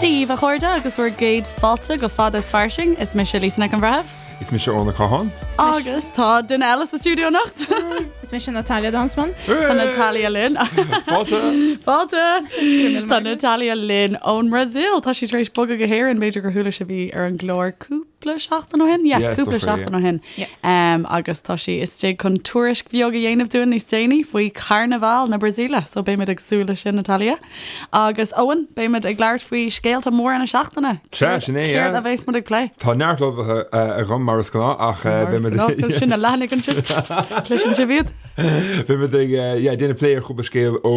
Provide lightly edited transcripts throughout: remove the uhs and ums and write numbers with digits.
Dia daoibh a chairde agus bhur gcéad fáilte go Fada is Fairsing. Is mise Lisa Nic an Bhreithimh. Is mise Eoin Ó Catháin. Agus tá duine eile sa stiúideo anocht. Is mise Natalia Danzmann. Tá Natalia linn. Fáilte! Fáilte! Tá Natalia linn ón mBrasaíl. Tá sí tar éis bogadh go hÉirinn, b'fhéidir gur chuala sibh í ar an gclár cúpla seachtain ó shin? Yeah, Yeah, is cúpla dócha, seachtain yeah. ó shin. Yeah. Um, agus tá sí istigh chun tuairisc bheag a dhéanamh dúinn níos déanaí faoi Charnabhal na Brasaíle, so beimid ag súil leis sin, Natalia. Agus Eoin, beimid ag labhairt faoi scéalta móra na seachtaine. Sea, sin é, Céard yeah. a bheas muid ag plé? Tá neart ullmhaithe agam mar is gnáth ach Mar is beimid gnáth, sin na leathanaigh ansin. Cloiseann sibh iad? Beimid ag yeah, déanamh plé ar chúpla scéal ó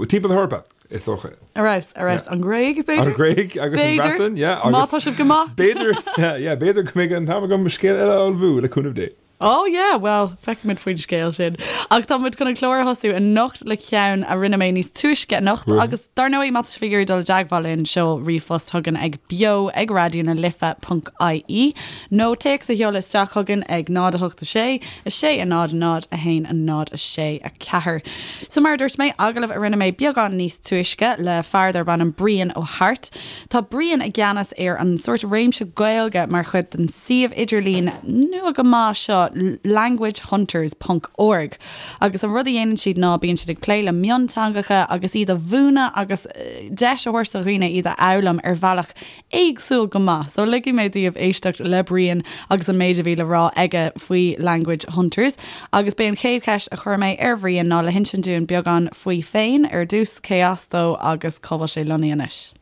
timpeall na hEorpa, is dócha. Ar fheabhas, ar fheabhas. An Ghréig, b'fhéidir? An Ghréig agus an B'fhéidir. Bhreatain, yeah. Má Agus tá sibh go maith. b'fhéidir, yeah, b'fhéidir go mbeidh an t-am agam scéal eile a ullmhú, le cúnamh Dé. Oh yeah, bhuel, feicfimid faoin scéal sin. Ach tá muid chun an clár a thosú anocht le ceann a rinne mé níos túisce anocht agus dar ndóigh má tá sibh ag iarraidh dul i dteagmháil linn, seol ríomhphost chugainn ag beo ag raidió na life ponc ie nó téacs a sheoladh isteach chugainn ag 0 8 6 6 0 0 1 0 6 4. So mar a dúirt mé, agallamh a rinne mé beagán níos túisce le fear darb ainm Brian Ó hAirt. Tá Brian i gceannas ar an sórt réimse Gaeilge mar chuid den suíomh idirlín nua go maith seo languagehunters ponc org agus an rud a dhéanann siad ná bíonn siad ag plé le mionteangacha agus iad a mhúineadh agus deis a thabhairt do dhaoine iad a fhoghlaim ar bhealach éagsúil go maith. So ligfidh mé daoibh éisteacht le Brian agus an méid a bhí le rá aige faoi Language Hunters. Agus b'é an chéad cheist a chuir mé ar Bhrian ná le hinsint dúinn beagán faoi féin ar dtús, cé as dó agus cá bhfuil sé lonnaithe anois.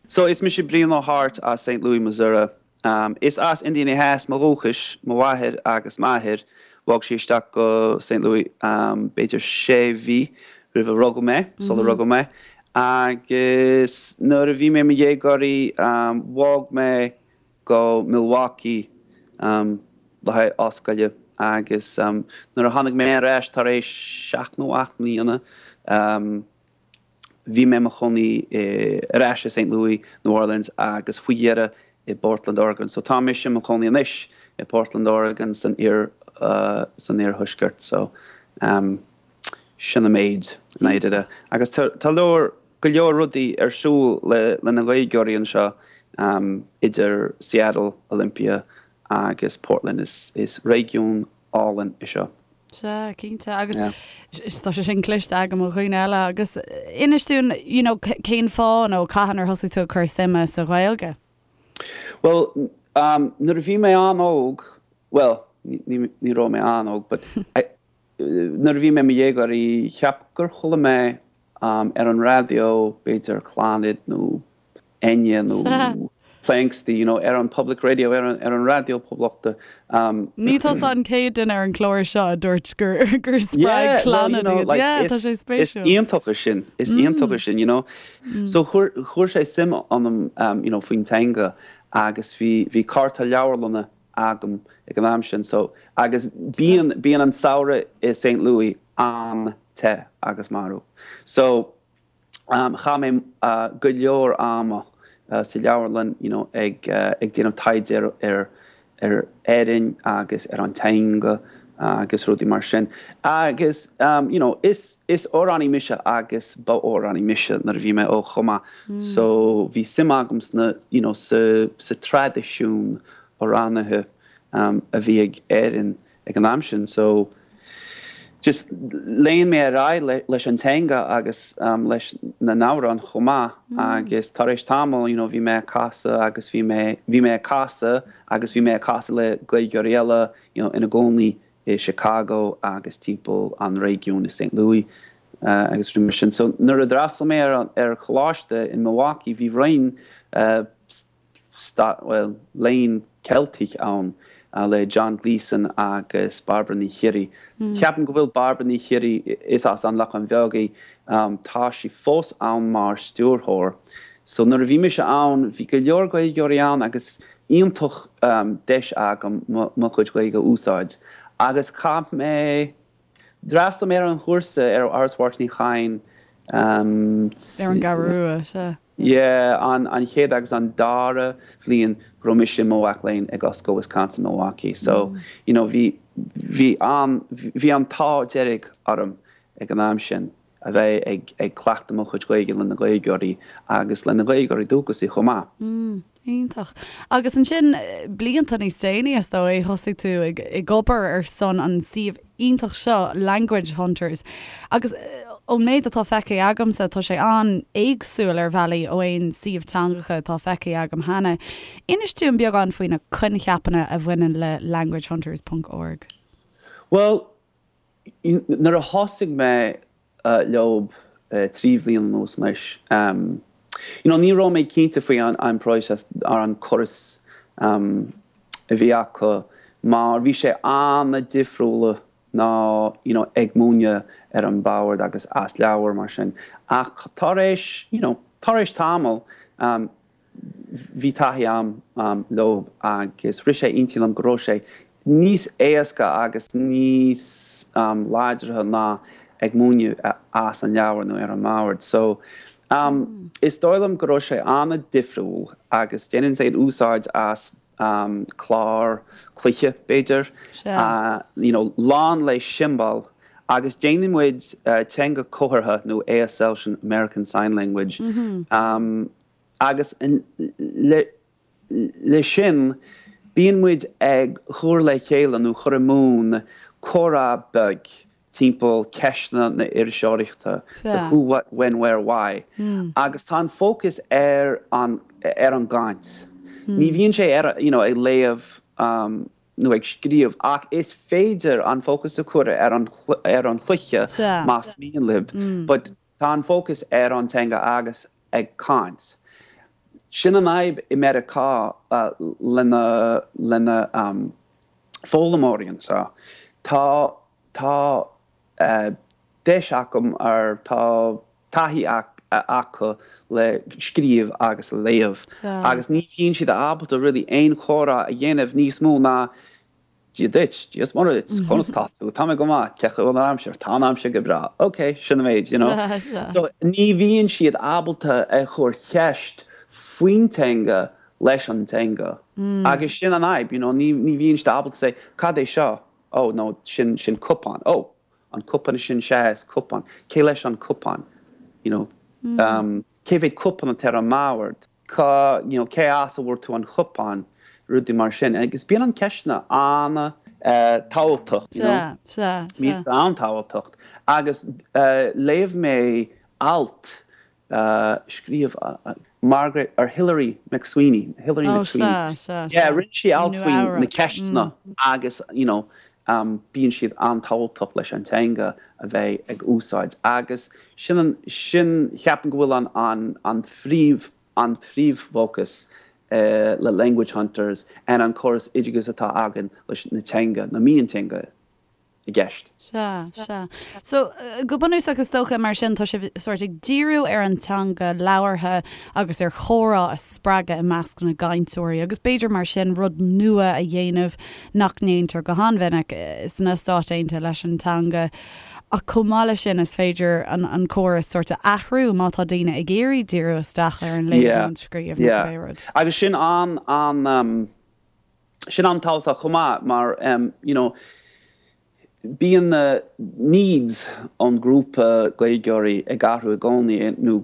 So, is mise Brian Ó hAirt as Saint Louis, Missouri. Is as Indiana Theas mo dhúchais, mo mháthair agus m'athair. Bhog siad isteach go Saint Louis b'fhéidir sé mhí roimh a rugadh mé, sular rugadh mé. Agus nuair a bhí mé i mo dhéagóirí, bhog mé go Milwaukee le haghaidh ollscoile agus nuair a tháinig mé ar ais tar éis seacht nó ocht mbliana, bhí mé i mo chónaí ar ais i Saint Louis, New Orleans agus faoi dheireadh i bPortland, Oregon. So tá mise i mo chónaí anois i Portland, Oregon san iar san iarthuaisceart. So sin an méid i ndáiríre. Agus tá leor go leor rudaí ar siúl le na Gaeilgeoirí anseo idir Seattle, Olympia agus Portland. Is réigiún álainn é seo. Sea, cinnte. Agus tá sé sin cloiste agam ó dhaoine eile. Agus inis dúinn, you know, cén fáth nó cathain ar thosaigh tú ag cur suime sa Ghaeilge? Bhuel, nuair a bhí mé an-óg, bhuel, ní raibh mé an-óg, but Nuair a bhí mé i mo dhéagóirí, cheap gur chuala mé ar an raidió, b'fhéidir Clannad nó Enya nó Planxty, you know, ar an public radio, ar an ar an raidió poblachta. Ní tusa an chéad duine ar an chlár seo a dúirt gur gur spreag Clannad iad. Yeah, tá sé spéisiúil. Is iontach é sin, is iontach é sin, you know. So chuir chuir sé suim ionam, you know, faoin teanga agus bhí bhí cárta leabharlainne agam ag an am sin so agus bíonn bíonn an samhradh i Saint Louis an-te agus marbh so chaith mé go leor ama sa leabharlann you know ag ag déanamh taighde ar ar ar Éirinn agus ar an teanga agus rudaí mar sin agus you know is is amhránaí mise agus ba amhránaí mise nuair a bhí mé óg chomh maith so bhí suim agam sna you know sa sa traidisiún amhránaithe a bhí ag Éirinn ag an am sin so just lean mé ar aghaidh leis an teanga agus leis na n-amhráin chomh maith agus tar éis tamaill you know bhí mé ag casadh agus bhí mé bhí mé ag casadh agus bhí mé ag casadh le Gaeilgeoirí eile you know ina gcónaí i Chicago agus timpeall an réigiúin i Saint Louis agus rudaí mar sin. So nuair a d'fhreastail mé ar ar choláiste in Milwaukee bhí roinn bhuel, léann Ceilteach ann le John Gleeson agus Bairbre Ní Chiarraí. Ceapaim go bhfuil Bairbre Ní Chiarraí, is as An Lochán Bheag í, tá sí fós ann mar stiúrthóir. So nuair a bhí mise ann, bhí go leor Gaeilgeoirí ann agus iontach deis agam mo chuid Gaeilge a úsáid. Agus chaith mé, d'fhreastail mé ar an chúrsa ar Áras Mháirtín Uí Chadhain. Ar an gCeathrú Rua, sea. Yeah, an an chéad agus an dara bhliain go raibh mise i mo mhac léinn ag Ollscoil Wisconsin Milwaukee. So, you know, bhí bhí an bhí an t-ádh dearg orm ag an am sin. a bheith ag ag cleachtadh mo chuid Gaeilge le na Gaeilgeoirí agus le na Gaeilgeoirí dúchasaí chomh maith. Mm, iontach. Agus ansin, blianta níos déanaí, is dóigh, thosaigh tú ag ag obair ar son an suíomh iontach seo, Language Hunters. Agus ón méid atá feicthe agamsa, tá sé an-éagsúil ar bhealaí ó aon suíomh teangacha atá feicthe agam cheana. Inis dúinn beagán faoi na coincheapanna a bhaineann le languagehunters ponc org. Bhuel, nuair a thosaigh mé leob 3 bhliain anuas anois, you know, ní raibh mé cinnte faoi an próiseas ar an córas a bhí acu mar bhí sé an-difriúla ná you know ag múineadh ar an bord agus as leabhar mar sin ach tar éis you know tar éis tamall bhí taithí a'm leo agus rith sé intinn liom go raibh sé níos éasca agus níos láidre ná ag múineadh as an leabhar nó ar an mbord. So is dóigh liom go raibh sé an-difriúil agus déanann siad úsáid as clár cluiche b'fhéidir, you know lán le siombail agus déanann muid teanga comhartha nó ASL sin American Sign Language Agus le sin, bíonn muid ag cur le chéile nó chur i mbun comhrá beag timpeall ceisteanna na iriseoireachta, the who, what, when, where, why. Agus tá an fócas ar an ar an gcaint. Ní bhíonn sé ar you know ag léamh nó ag scríobh ach is féidir an fócas a chur ar an ar an chluiche más mian libh. But tá an fócas ar an teanga agus ag caint. Sin an fhadhb i Meiriceá lena lena foghlaimeoirí anseo. Tá tá deis acu ar tá taithí acu le scríobh agus le léamh agus ní bhíonn siad ábalta really aon chomhrá a dhéanamh níos mó ná Dia duit, Dia is Muire duit, conas tá tú, tá mé go maith, cén chaoi a bhfuil an aimsir, tá an aimsir go breá, ok, sin an méid, you know. So ní bhíonn siad ábalta a chur ceist faoin teanga leis an teanga agus sin an fhadhb, you know, ní ní bhíonn siad ábalta say, cad é seo? Oh no, sin sin cupán, oh, an cupán sin, sea, is cupán, cé leis an cupán, you know, um, cé mhéad cupán atá ar an mbord? cá, you know, cé as a bhfuair tú an cupán, rudaí mar sin. Agus bíonn an ceisteanna an-tábhachtach, you know. Sea, sea, sea. Bíonn siad an-tábhachtach. Agus léigh mé alt a scríobh Margaret, or Hilary McSweeney, Hilary Oh, McSweeney. sea, sea, Yeah, sea. rinne sí alt Nua faoi na Eabhrac. ceisteanna agus, you know, bíonn siad an-tábhachtach leis an teanga a bheith ag úsáid agus sin an, sin, cheapaim go bhfuil an, an, an phríomh, an phríomhfhócas le Language Hunters and an córas oideachais atá againn leis na teanga, na mionteanga i gceist. Sea, sea. So, go bunúsach is dócha mar sin tá sibh sórt ag díriú ar an teanga labhartha agus ar chomhrá a spreagadh i measc na gcainteoirí agus b'fhéidir mar sin rud nua a dhéanamh nach ndéantar go han-mhinic sna Stáit Aontaithe leis an teanga. Ach chomh maith leis sin is féidir an córas sórt a athrú má tá daoine ag iarraidh díriú isteach ar an léamh nó an scríobh nó cibé rud. Agus sin an, an, sin an-tábhachtach chomh maith mar you know bíonn na needs ón grúpa Gaeilgeoirí ag athrú i gcónaí nó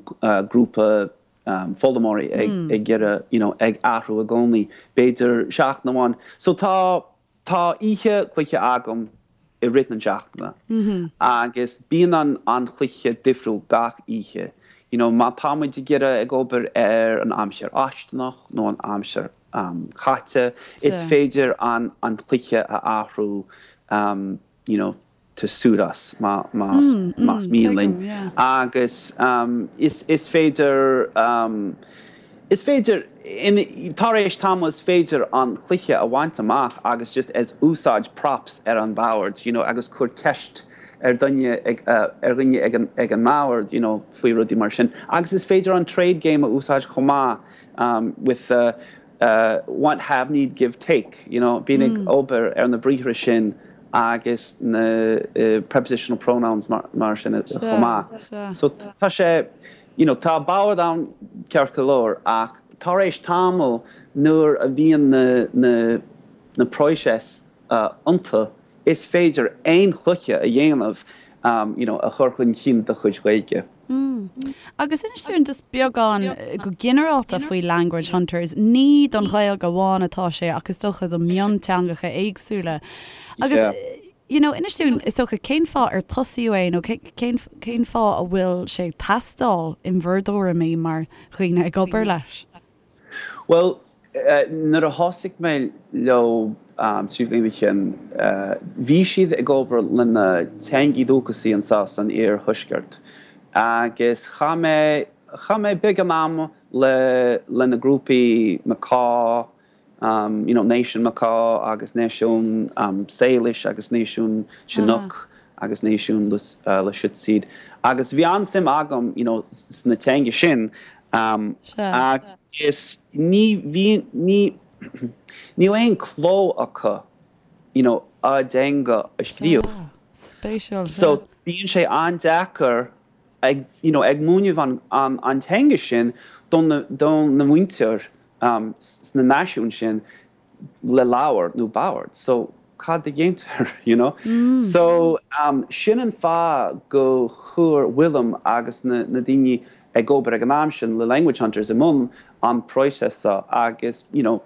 grúpa foghlaimeoirí ag iarraidh you know ag athrú i gcónaí, b'fhéidir seachtain amháin. So tá, tá oíche cluiche agam i rith na seachtaine agus bíonn an an chluiche difriúil gach oíche. You know má tá muid ag iarraidh ag obair ar an aimsir fháistineach nó an aimsir chaite, is féidir an an cluiche a athrú you know to suit us más mian linn. Agus is féidir, is féidir, tar éis tamaill is féidir an cluiche a bhaint amach agus just as úsáid props ar an bhord you know agus cur ceist ar dhuine ag ar dhuine ag an ag an mbord you know faoi rudaí mar sin. Agus is féidir an trade game a úsáid chomh maith with the want, have, need, give, take, you know, bíonn ag obair ar na briathra sin agus na prepositional pronouns mar sin chomh maith. So tá sé, you know, tá bord ann ceart go leor ach tar éis tamaill nuair a bhíonn na, na, na próiseas iontu is féidir aon chluiche a dhéanamh. you know, a chur chun cinn do chuid Gaeilge. Agus inis dúinn just beagán go ginearálta faoi Language Hunters. Ní don Ghaeilge amháin atá sé ach is dócha do mhionteangacha éagsúla. Agus you know, inis dúinn is dócha cén fáth ar tosaíodh é nó cén cén fáth a bhfuil sé ag teastáil in bhur dtuairimí mar dhaoine ag obair leis? Bhuel, nuair a thosaigh mé leo 3 bhliain ó shin, bhí siad ag obair le na teangaí dúchasaí anseo san iarthuaisceart agus chaith mé, chaith mé beagán ama le, le na grúpaí Makah, you know, Náisiún Makah agus Náisiún Salish agus Náisiún Chinook agus Náisiún Lushootseed agus bhí an-suim agam, you know, sna teanga sin agus ní bhí, ní, níl aon cló acu, you know, a dteanga a scríobh. Spéisiúil. So bíonn sé an-deacair ag, you know, ag múineadh an, an, an teanga sin don na, don na muintir sna náisiúin sin le leabhar nó bord. So cad a dhéantar, you know? So sin an fáth go chuir William agus na, na daoine ag obair ag an am sin le Language Hunters i mbun an próiseas seo agus, you know,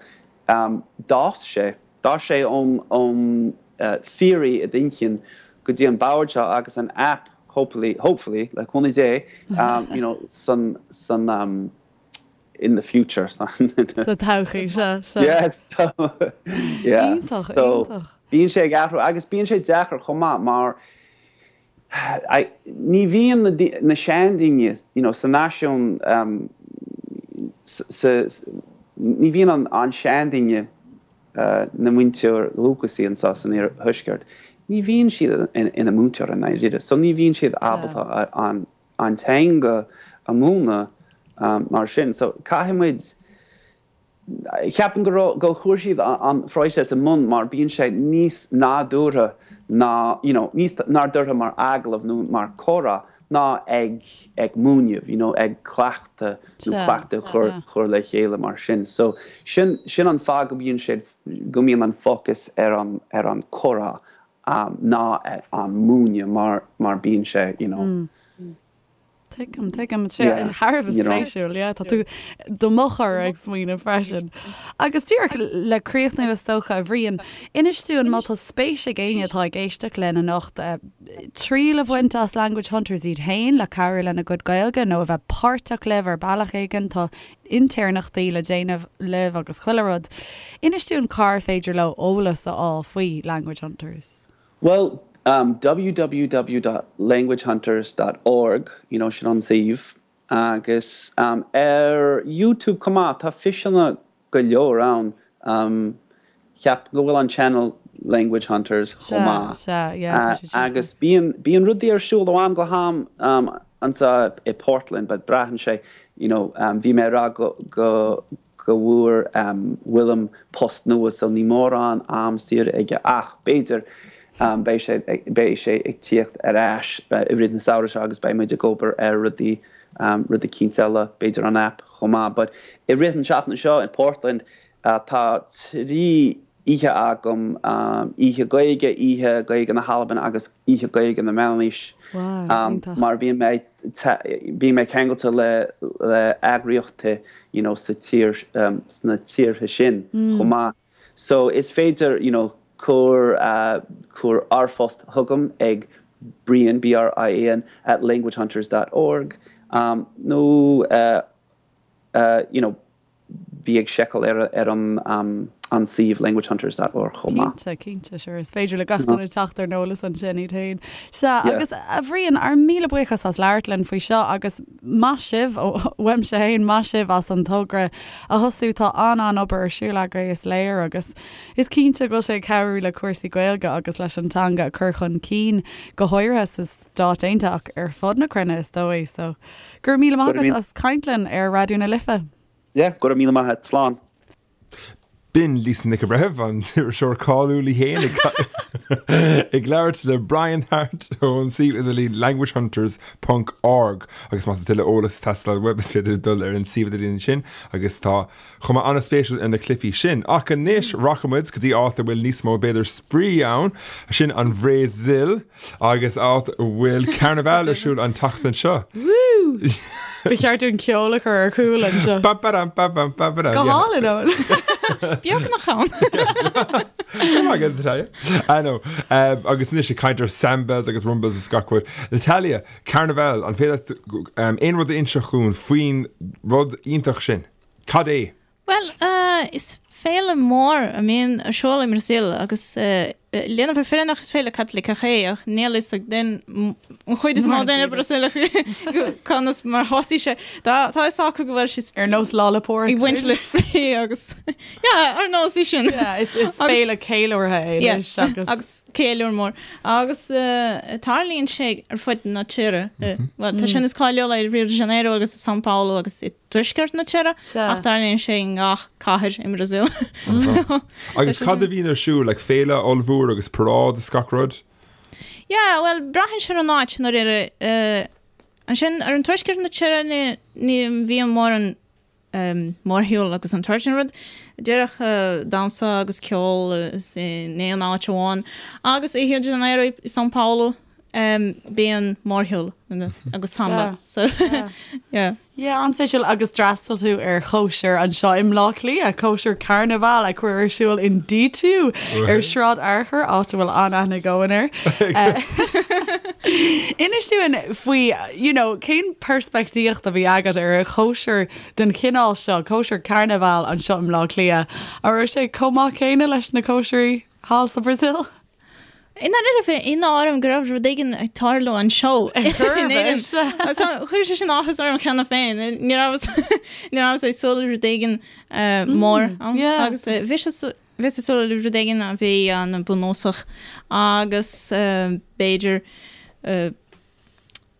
d'fhás sé, d'fhás sé ón, ón theory i d'inchinn go dtí an bord seo agus an app hopefully, hopefully, le cúnamh Dé, you know, san, san, in the future. Sa todhchaí, sea, sea. Yeah, so, yeah. Iontach, so, iontach. Bíonn sé ag athrú agus bíonn sé deacair chomh maith mar ní bhíonn na, na seandaoine, you know, sa náisiún, um, sa, ní bhíonn an, an seandaoine uh, na muintir dhúchasaí anseo san iarthuaisceart, ní bhíonn siad ina múinteoir i ndáiríre, so ní bhíonn siad ábalta an an teanga a mhúineadh mar sin. So caithfidh muid, ceapaim go raibh, go chuir siad an phróiseas i mbun mar bíonn sé níos nádúrtha ná, you know, níos nádúrtha mar agallamh nó mar comhrá ná ag ag múineadh, you know, ag cleachtadh nó cleachtadh a chur chur le chéile mar sin. So sin sin an fáth go mbíonn siad, go mbíonn an fócas ar an ar an comhrá ná an múineadh mar mar bíonn sé you know. Tuigim, tuigim. Sé thar a bheith spéisiúil, yeah. Tá tú do mo chur ag smaoineamh freisin. Agus díreach le críochnú is dócha, a Bhriain, inis dúinn má tá spéis ag éinne atá ag éisteacht linn anocht triail a bhaint as Language Hunters iad féin le cabhrú lena gcuid Gaeilge nó a bheith páirteach libh ar bealach éigin, tá intéirneachtaí le déanamh libh agus chuile rud. Inis dúinn cár féidir leo eolas a fháil faoi Language Hunters. Bhuel, www dot languagehunters dot org, you know, sin an suíomh. Agus ar YouTube chomh maith, tá físeanna go leor ann. Ceapaim go bhfuil an channel Language Hunters chomh maith. Sea, sea, yeah, tá siad sin. Agus bíonn, bíonn rudaí ar siúl ó am go ham anseo i Portland but braitheann sé, you know, bhí mé ag rá go, go, go bhfuair William post nua so ní mórán am saor aige ach b'fhéidir beidh sé, beidh sé ag tíocht ar ais i rith na samhradh seo agus beidh muid ag obair ar rudaí, rud eicínt eile, b'fhéidir an app chomh maith. But i rith an seachtain seo in Portland Tá 3 oíche agam, Oíche Gaeilge, Oíche Gaeilge na hAlban agus Oíche Gaeilge na Meánaois. Mar bíonn mé bíonn mé ceangailte le le eagraíochtaí you know sa tír sna tíortha sin chomh maith. So is féidir you know cur cur r-phost chugam ag Brian, B-R-I-A-N, at languagehunters dot org nó you know bí ag seiceáil ar ar an an suíomh languagehunters dot org chomh maith. Cinnte, cinnte, sure. Is féidir le gach duine teacht ar an eolas ansin iad féin. Sea, agus a Bhriain, ár míle buíochas as labhairt linn faoi seo agus maith sibh, uaimse féin, maith sibh as an togra a thosú. Tá an-an-obair ar siúl agaibh, is léir, agus is cinnte go bhfuil sé ag cabhrú le cúrsaí Gaeilge agus leis an teanga a chur chun cinn, go háirithe sa Stáit Aontaithe ach ar fud na cruinne is dóigh. So, go raibh míle maith agat as caint linn ar Raidió na Life. Yeah, go raibh míle maith agat. Slán. B'in Lisa Nic an Bhreithimh, an t-iriseoir cáiliúil í féin, ag labhairt le Brian Harte ón suíomh idirlín languagehunters ponc org agus má tá tuilleadh eolas ag teastáil uaibh is féidir dul ar an suíomh idirlín sin agus tá cuma an-spéisiúil ar na cluichí sin. Ach anois rachaidh muid go dtí áit a bhfuil níos mó b'fhéidir spraoi ann, sin an Bhrasaíl agus áit a bhfuil Carnival ar siúl an tseachtain seo. Woo! Ba cheart dúinn ceol a chur ar chúl anseo. Ba ba dam ba bam ba ba dam. Go hálainn, Eoin. Beagnach ann. Go maith agat, Natalia. I know. Um, agus anois ag caint ar sambas agus rumbas is gach rud. Natalia, Carnival, an féidir leat um, aon rud a inseacht dhúinn faoin rud iontach sin? Cad é? Bhuel, is féile mór a mbíonn ar siúl i mBrasaíl agus lena bheith fírinneach is féile Caitliceach é ach níl fhios ag duine, an chuid is mó daoine Brasaíleach conas mar thosaigh sé. Tá fhios acu go bhfuil sé Ar nós Lá 'le Pádraig. ag baint le spraoi agus yeah, ar nós é sin. Yeah, is féile ceiliúrtha é anois agus. Agus ceiliúr mór. Agus tarlaíonn sé ar fud na tíre. Bhuel, tá sé níos cáiliúla i Rio de Janeiro agus i São Paulo agus i dtuaisceart na tíre, ach tarlaíonn sé i ngach cathair i mBrasaíl. Agus cad a bhíonn ar siúl, like féile ollmhór agus paráid is gach rud? Yeah, bhuel, braitheann sé ar an áit i ndáiríre. Ansin, ar an tuaisceart na tíre ní bhíonn mórán mórshiúl agus an tsórt sin rud. Díreach damhsa agus ceol in aon áit amháin. Agus i Rio de Janeiro, i São Paulo, bíonn mórshiúl agus samba. So, yeah. Yeah, an-spéisiúil. Agus d'fhreastail tú ar chóisir anseo i mBleá Cliath, cóisir Carnival a cuireadh ar siúl in D2 ar Shráid Fhearchair, áit a bhfuil an-aithne ag Eoin air. Inis dúinn faoi, you know, cén peirspictíocht a bhí agat ar chóisir den chineál seo, cóisir Carnival anseo i mBleá Cliath? An raibh sé chomh maith céanna leis na cóisirí thall sa Bhrasaíl? I ndáiríre bhí ionadh orm go raibh rud éigin ag tarlú anseo in Éirinn. So chuir sé sin áthas orm cheana féin. Ní rabhas ní rabhas ag súil le rud éigin mór ann agus bhí sé bhíos ag súil le rud éigin a bhí an-bhunúsach agus b'fhéidir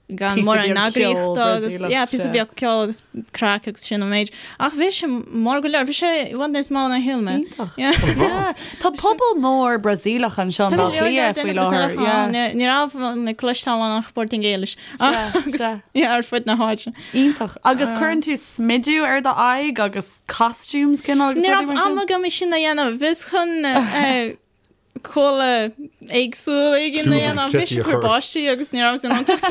gan mórán eagraíochta agus yeah píosa beag ceoil agus craic agus sin an méid. Ach bhí sé mór go leor, bhí sé i bhfad níos mó ná shíl mé. Iontach. Yeah. Tá pobal mór Brasaíleach anseo i mBaile Átha Cliath faoi láthair. Yeah. Ní raibh mé ag cloisteáil ach Portaingéilis. Agus yeah ar fud na háite. Iontach. Agus cuireann tú smidiú ar do aghaidh agus costumes cineál agus rudaí mar sin? Ní raibh am agam é sin a dhéanamh. Bhíos chun culaith éagsúil éigin a dhéanamh. Bhí sé ag cur báistí agus ní rabhas in ann teacht.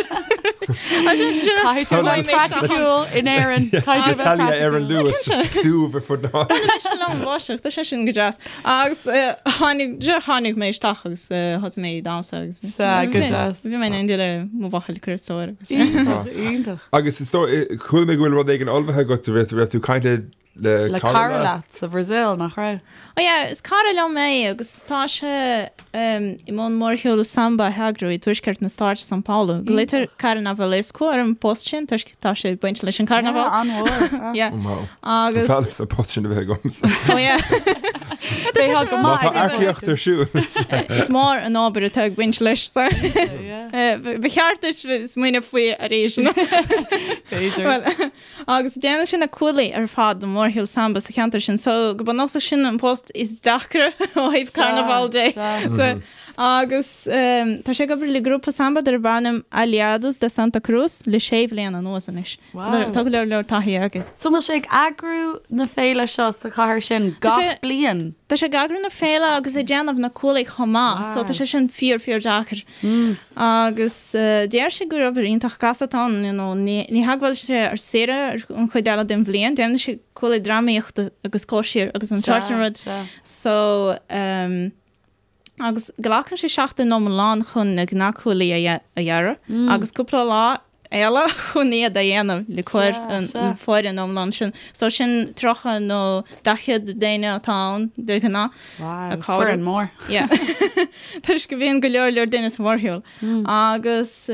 Caithfidh tú bheith praiticiúil in Éirinn. Caithfidh tú bheith Natalia ar an Luas just clúmh ar fud na háite. Bhí mise liom báisteach, tá sé sin go deas. Agus tháinig, tháinig mé isteach agus thosaigh mé ag damhsa agus Sea, go deas. bhí mé in éindí le mo bhuachaill cursóir agus. Iontach, iontach. Agus is dóigh, chuala mé go bhfuil rud éigin ullmhaithe agat, raibh tú ag caint le Le cara leat sa Bhrasaíl, nach raibh? Oh yeah, is cara liom é agus tá sé i mbun mórshiúl samba a eagrú i dtuaisceart na stáit i São Paulo. Glaoitear Carnavalesco ar an bpost sin toisc tá sé ag baint leis an carnabhal. Yeah, an-mhór. Yeah. Oh wow. Agus. B'fhearr liomsa an post sin a bheith agamsa. Oh yeah. Bheadh go Má maith tá aige. earcaíocht ar siúl. Is mór an obair atá ag baint leis. So. Yeah. Ba cheart duit smaoineamh faoi arís. B'fhéidir. Well, Agus déanann sé na cuaillí ar fad don mhórshiúl samba sa cheantar sin, so go bunúsach sin an post is deacra ó thaobh carnabhal de. So, agus tá sé ag obair le grúpa samba darb ainm Aliados de Santa Cruz le sé bhliain anuas anois. So tá go leor leor taithí aige. So an bhfuil sé ag eagrú na féile seo sa chathair sin gach bliain? Tá sé ag eagrú na féile agus ag déanamh na cuaillí chomh maith, so tá sé sin fíor fíor deacair. Agus deir sé gur obair iontach gasta atá ann, you know, ní hé go bhfuil sé ar saoire an chuid eile den bhliain, déanann sé cuaillí drámaíochta agus cóisir agus an sórt sin rud. So, ehm, agus glacann sé seachtain iomlán chun na gnáthchuaillí a dhearadh agus cúpla lá eile chun iad a dhéanamh le cur an foireann iomlán sin. So sin 30 nó 40 duine atá ann de ghnáth. Wow, foireann mór. Yeah. Toisc go mbíonn go leor leor duine sa mhórshiúl. Agus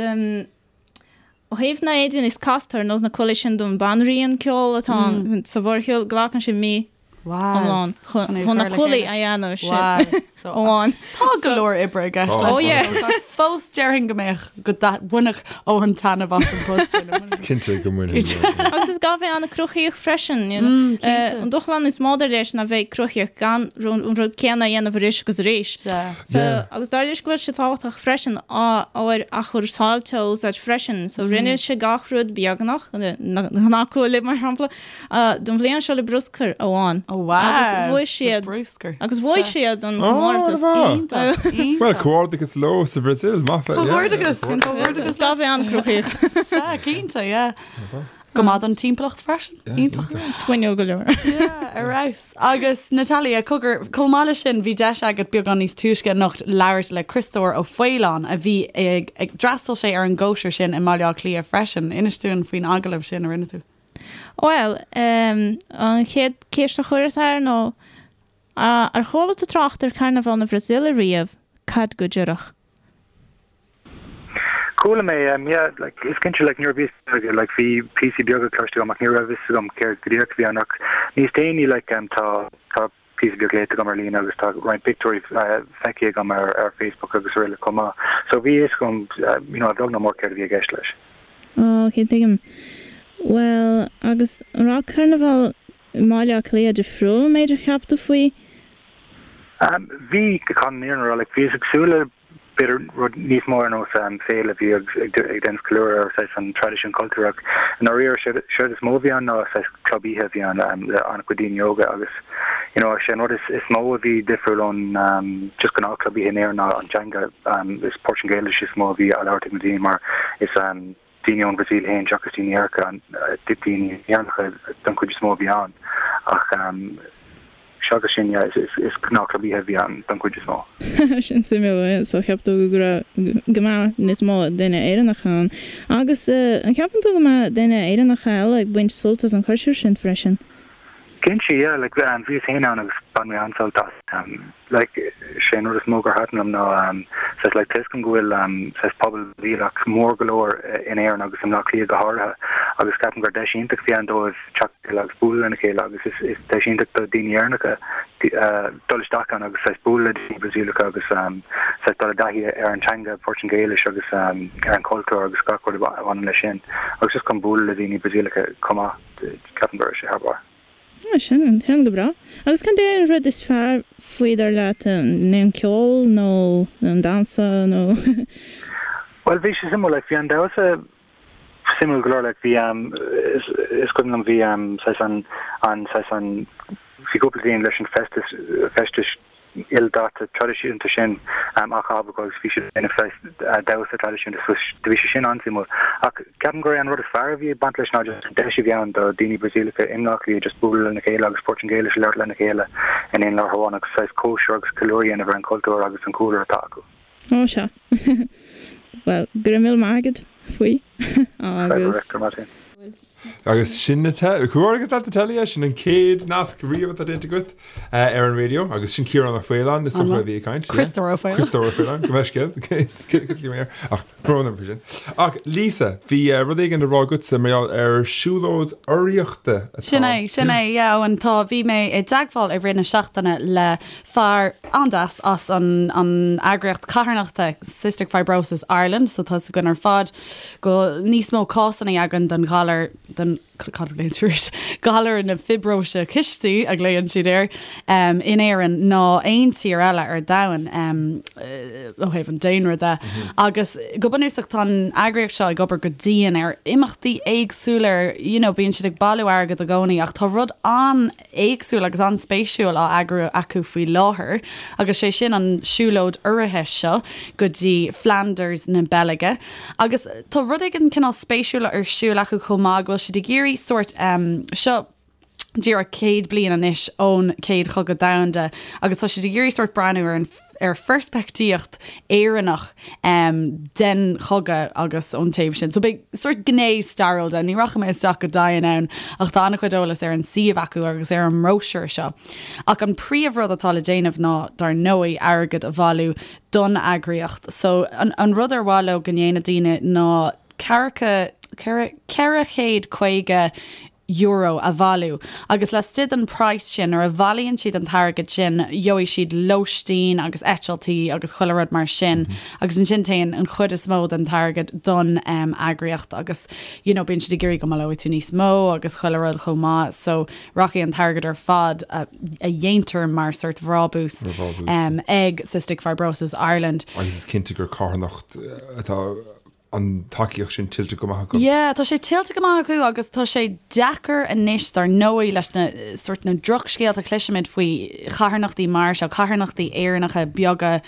ó thaobh na éadaí níos casta ar nós na cuaillí sin don banríon ceoil atá ann sa mhórshiúl, glacann sé mí. Iomlán chun na cuaillí a dhéanamh sin amháin. Tá go leor oibre i gceist leis. Oh yeah. Fós déarfainn go mbeadh go mbainfeadh Eoghan taitneamh as an bpost sin. Is cinnte go mbainfidh. Agus is gá bheith an-chruthaíoch freisin. An dúshlán is mó dar leis ná bheith cruthaíoch gan an rud céanna a dhéanamh arís agus arís. Agus dar leis go bhfuil sé tábhachtach freisin ábhair athchúrsáilte a úsáid freisin. So rinne sé gach rud beagnach, na gnáthchuaillí mar shampla, Don bhliain seo le bruscar amháin. Oh wow! Agus bhuaigh siad. Bruscar. Agus bhuaigh siad an comórtas. Iontach, iontach. Bhuel, comhghairdeachas leo sa Bhrasaíl, maith. Comhghairdeachas, comhghairdeachas. Gá bheith an-chruthaíoch. Sea, cinnte, yeah. Go maith don timpeallacht freisin. Iontach. Is fuinniúil go leor. Yeah, ar fheabhas. Agus Natalia, cogar, chomh maith leis sin, bhí deis agat beagán níos túisce anocht labhairt le Criostóir Ó Faoláin a bhí ag, ag, d'fhreastail sé ar an gcóisir sin i mBaile Átha Cliath freisin. Inis dúinn faoin agallamh sin a rinne tú. Bhuel, an chéad cheist a chuireas air ná, Ar chuala tú trácht ar Carnaval na Brasaíle riamh? Cad go díreach? Chuala mé, yeah, like, is cinnte, like, nuair a bhíos beag, like, bhí píosaí beaga cloiste agam ach ní raibh fhios agam céard go díreach a bhí ann ach níos déanaí, like, tá, tá píosa beag léite agam ar líne agus tá roinnt pictiúirí feicthe agam ar, ar Facebook agus araile chomh maith. So bhí fhios agam, you know, a bheag nó mór céard a bhí i gceist leis. Ó, ok, tuigim. Bhuel, agus an raibh Carnabhal i mBaile Átha Cliath difriúil ón méid a cheap tú faoi? Bhí, chun an fhírinne a rá, like, bhíos ag súil le b'fhéidir rud níos mó ar nós féile a bhí ag déanamh ceiliúradh ar saghas an traidisiún cultúr ach i ndáiríre séard is mó a bhí ann ná saghas club oíche a bhí ann le an-chuid daoine óga agus you know sé an rud is mó a bhí difriúil ón just gnáth club oíche in Éirinn ná an teanga is Portaingéilis is mó a bhí á labhairt ag na daoine mar is daoine ón Bhrasaíl féin seachas daoine Éireannacha, daoine Éireannacha don chuid is mó a bhí ann ach seachas sin yeah is gnáthchlub oíche a bhí ann don chuid is mó. Sin suimiúil, so cheap tú go raibh, go mbeadh níos mó daoine Éireannacha ann. Agus an ceapann tú go mbeadh daoine Éireannacha eile ag baint sult as an chóisir sin freisin? Cinnte, yeah, like bhíos féin ann agus bhain mé an-sult as. Like sé an rud is mó gur thaitin liom ná saghas like tá 'fhios agam go bhfuil saghas pobal Brasaíleach mór go leor in Éirinn agus i mBleá Cliath go háirithe agus ceapaim gur deis iontach a bhí ann dóibh teacht le chéile agus bualadh lena chéile agus is is deis iontach do daoine Éireannacha dul isteach ann agus saghas bualadh le daoine Brasaíleacha agus saghas dul i dtaithí ar an teanga Portaingéilis agus ar an chultúr agus gach rud a bhaineann leis sin agus just chun bualadh le daoine Brasaíleacha chomh maith. Ceapaim go raibh sé thar barr. Ah, sin, sin go breá. Agus cad é an rud is fearr faoi dar leat, an é an ceol nó an damhsa nó? Bhuel, bhí sé suimiúil, like, bhí an damhsa suimiúil go leor, like, bhí, is, is cuimhin liom, bhí, saghas an, an, saghas an, bhí cúpla daoine leis an feisteas, feistis ildaite traidisiúnta sin á chaitheamh acu agus bhí siad ag déanamh saghas damhsa traidisiúnta so bhí sé sin an-suimiúil. Ach ceapaim gur é an rud is fearr a bhí ag baint leis ná just an deis a bhí ann do daoine Brasaíleacha i mBleá Cliath just bualadh lena chéile agus Portaingéilis a labhairt lena chéile in aon láthair amháin agus saghas cóisir agus ceiliúradh a dhéanamh ar an chultúr agus an cúlra atá acu. Ó sea. Bhuel, go raibh míle maith agat faoi agus. Agus sin na te, comhghairdeachas leat Natalia, sin an chéad nasc riamh atá déanta agat ar an raidió agus sin Ciarán Ó Faoláin is dócha a bhí ag caint. Criostóir Ó Faoláin. Criostóir Ó Faoláin, gabh mo leithscéal. Ach brón orm faoi sin. Ach Lisa, bhí rud éigin le rá agatsa mar gheall ar siúlóid urraíochta atá. Sin é, sin é, yeah, Eoin, tá, bhí mé i dteagmháil i rith na seachtaine le fear an-deas as an an eagraíocht carthanachta Cystic Fibrosis Ireland, so tá 'fhios againn ar fad go bhfuil níos mó cásanna againn den ghalar, den, cad a ghlaonn tú air, galar na fiobróise cistí a ghlaonn siad air, in Éirinn ná aon tír eile ar domhan ó thaobh an daonra de. Agus go bunúsach tá an eagraíocht seo ag obair go dian ar imeachtaí éagsúla, ar, you know, bíonn siad ag bailiú airgid i gcónaí ach tá rud an éagsúil agus an-spéisiúil á eagrú acu faoi láthair agus sé sin an siúlóid urraithe seo go dtí Flanders na Beilge agus tá rud éigin cineál spéisiúil ar siúl acu chomh maith go bhfuil siad ag iarraidh sórt seo díreach 100 bliain anois ón Chéad Chogadh Domhanda agus tá siad ag iarraidh sórt breathnú ar an ar pheirspictíocht Éireannach den chogadh agus ón taobh sin. So beidh sórt gné stairiúil de, ní rachaidh mé isteach go dian ann ach tá an-chuid eolas ar an suíomh acu agus ar an mbróisiúr seo. Ach an príomhrud atá le déanamh ná, dar ndóigh, airgead a bhailiú don eagraíocht. So an, an rud ar mhaith leo go ndéanadh daoine ná ceathracha, 450. euro a bhailiú agus laistigh den praghas sin, nuair a bhailíonn siad an t-airgead sin, gheobhaidh siad lóistín agus eitiltí agus chuile rud mar sin agus ansin téann an chuid is mó den t-airgead don eagraíocht agus you know bíonn siad ag iarraidh go mbaileoidh tú níos mó agus chuile rud chomh maith so rachaidh an t-airgead ar fad a dhéantar mar sort bhrábús ag Cystic Fibrosis Ireland. Agus is cinnte gur carthanacht atá an tacaíocht sin tuillte go maith acu. Yeah, tá sé tuillte go maith acu agus tá sé deacair anois dar ndóigh leis na sort na drochscéalta a chloisimid faoi charthanachtaí mar seo, carthanachtaí Éireannacha beaga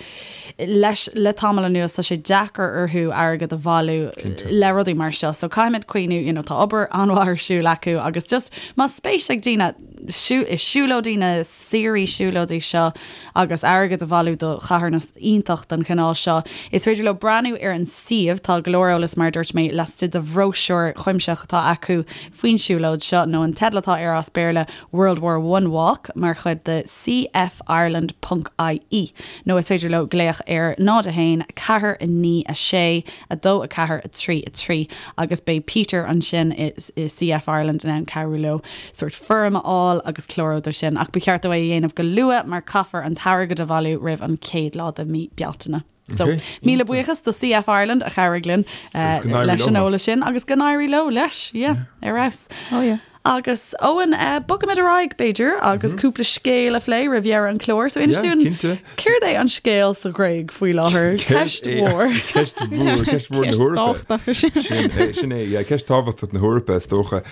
leis le tamall anuas tá sé deacair orthu airgead a bhailiú le rudaí mar seo. So caithfimid cuimhniú, you know, tá obair an-mhaith ar siúl acu agus just más spéis ag daoine i siúlóidí na saoirí siúlóidí seo agus airgead a bhailiú do charthanacht iontach den chineál seo. Is féidir leo breathnú ar an suíomh, tá go leor eolas mar a dúirt mé laistigh de bhróisiúr cuimsitheach atá acu faoin siúlóid seo, nó an teideal atá air as Béarla World War One Walk mar chuid de cfireland ponc ie nó is féidir leo glaoch ar 0 1 4 9 6 2 4 3 3 agus beidh Peter ansin i CF Ireland in ann cabhrú leo sórt foirm a fháil agus clárú dó sin ach ba cheart dó é a dhéanamh go luath mar caithfear an t-airgead a bhailiú roimh an chéad lá de mí Bealtaine. So, míle buíochas do CF Ireland a chabhraigh linn leis an eolas sin agus go n-éirí leo leis, yeah, ar fheabhas. Oh yeah. Agus Eoin, bogfaimid ar aghaidh, b'fhéidir, agus cúpla scéal a phlé roimh dheireadh an chláir. So inis dúinn, céard é an scéal sa Ghréig faoi láthair? Ceist mhór. Ceist mhór, ceist mhór na hEorpa. Sin é, sin é, yeah, ceist tábhachtach na hEorpa, is dócha.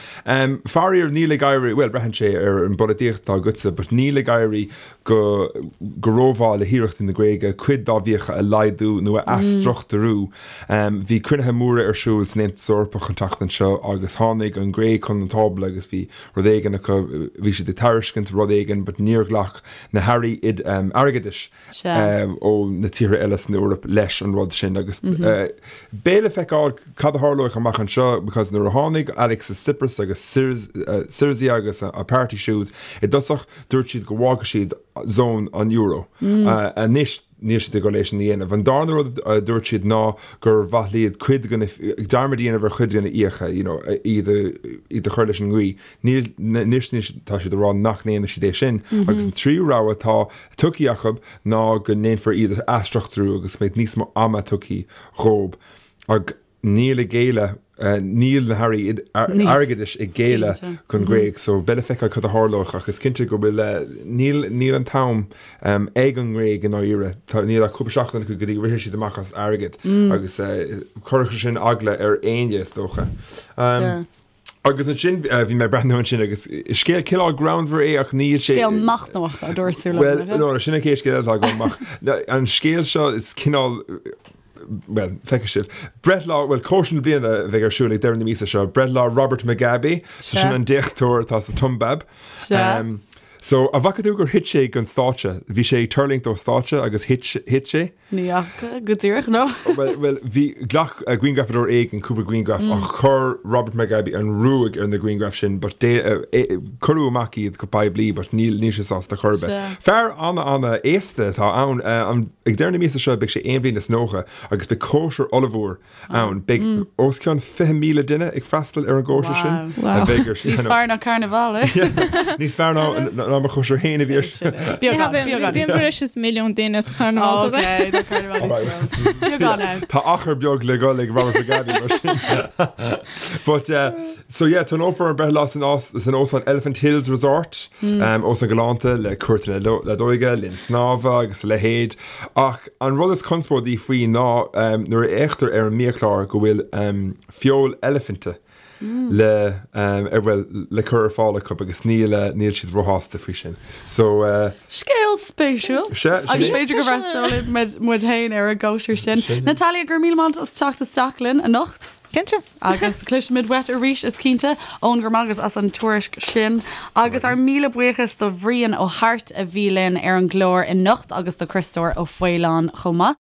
Faraor, níl ag éirí, bhuel, braitheann sé ar an bpolaitíocht atá agatsa, but níl ag éirí go go rómhaith le hiarrachtaí na Gréige cuid dá bhfiacha a laghdú nó a athstruchtúrú. Bhí cruinnithe móra ar siúl san Aontas Eorpach an tseachtain seo agus tháinig an Ghréig chun an tábla agus bhí rud éigin acu, bhí siad ag tairiscint rud éigin but níor ghlac na hairí airgeadais ó na tíortha eile san Eoraip leis an rud sin agus beidh le feiceáil cad a tharlóidh amach anseo because nuair a tháinig Alexis Tsipras agus Syriza agus a páirtí siúd i dtosach Dúirt siad go bhfágfadh siad zón an euro. Anois níl siad ag dul é sin a dhéanamh. An darna rud a dúirt siad ná gur mhaith liad cuid de na, dearmad a dhéanamh ar chuid de na fiacha, you know, iad a, iad a chur leis an nGaoth. Níl, anois níl, tá siad ag rá nach ndéanfaidh siad é sin. Agus an tríú rogha atá tugtha acu ná go ndéanfar iad a athstruchtúrú agus go mbeidh níos mó ama tugtha dhóibh. Ag. Níl ag géilleadh, níl na hairí airgeadais ag géilleadh don Ghréig so beidh le feiceáil cad a tharlóidh ach is cinnte go bhfuil, níl, níl an t-am ag an nGréig i ndáiríre. Tá, níl ach cúpla seachtain acu go dtí go rithfidh siad amach as airgead agus chuirfeadh sin eagla ar éinne is dócha. Agus ansin bhí mé ag breathnú ansin agus scéal cineál greannmhar é ach níl sé. Scéal machnamhach a dúirt tú liom. Bhuel, no, sin an chéad scéal atá agam ach an scéal seo is cineál bhuel, feicfidh sibh. Breithlá, bhuel, cóisir na bliana a bheidh ar siúl ag deireadh na míosa seo, breithlá Robert Mugabe, so sin an déachtóir atá sa tSiombáib. So, an bhfaca tú gur thit sé den stáitse? Bhí sé ag tuirlingt ó stáitse agus thit, thit sé? Ní fhaca go díreach, no. Bhuel, bhuel, bhí, ghlac grianghrafadóir éigin cúpla grianghraf ach chuir Robert Mugabe an ruaig ar na grianghraif sin but dé, cuireadh amach iad go poiblí but níl, níl sé sásta chor ar bith. Fear ana, ana aosta atá ann. An, ag deireadh na míosa seo beidh sé aon bhliain is 90 agus beidh cóisir ollmhór ann. Beidh os cionn 20,000 duine ag freastal ar an gcóisir sin. A bheidh ar Níos fearr ná Carnival, eh? Níos fearr ná ná mo chóisir féin a bhí ar. Beagán, beagán. Bíonn breis is milliún duine sa Charnival. Ok, tá Carnival níos mó. Beagán ann. Tá achar beag le dhul ag Robert Mugabe mar sin. But, uh, so yeah, tionólfar an breithlá san san óstán Elephant Hills Resort, um, óstán galánta le cúirteanna leadóige, linn snámha agus a leithéid. Ach an rud is conspóidí faoi ná nuair a fhéachtar ar an mbiachlár go bhfuil feoil eilifinte le ar bhuel le cur ar fáil acu agus níl níl siad róshásta faoi sin. So. Scéal spéisiúil. Sea, Agus b'fhéidir go bhfreastalóidh muid féin ar an gcóisir sin. Natalia, go raibh míle maith agat as teacht isteach linn anocht. Cinnte. Agus cloisfimid uait arís, is cinnte. Eoin, go raibh maith agat as an tuairisc sin. Agus ár míle buíochas do Bhrian Ó hAirt a bhí linn ar an gclár anocht agus do Chriostóir Ó Faoláin chomh maith.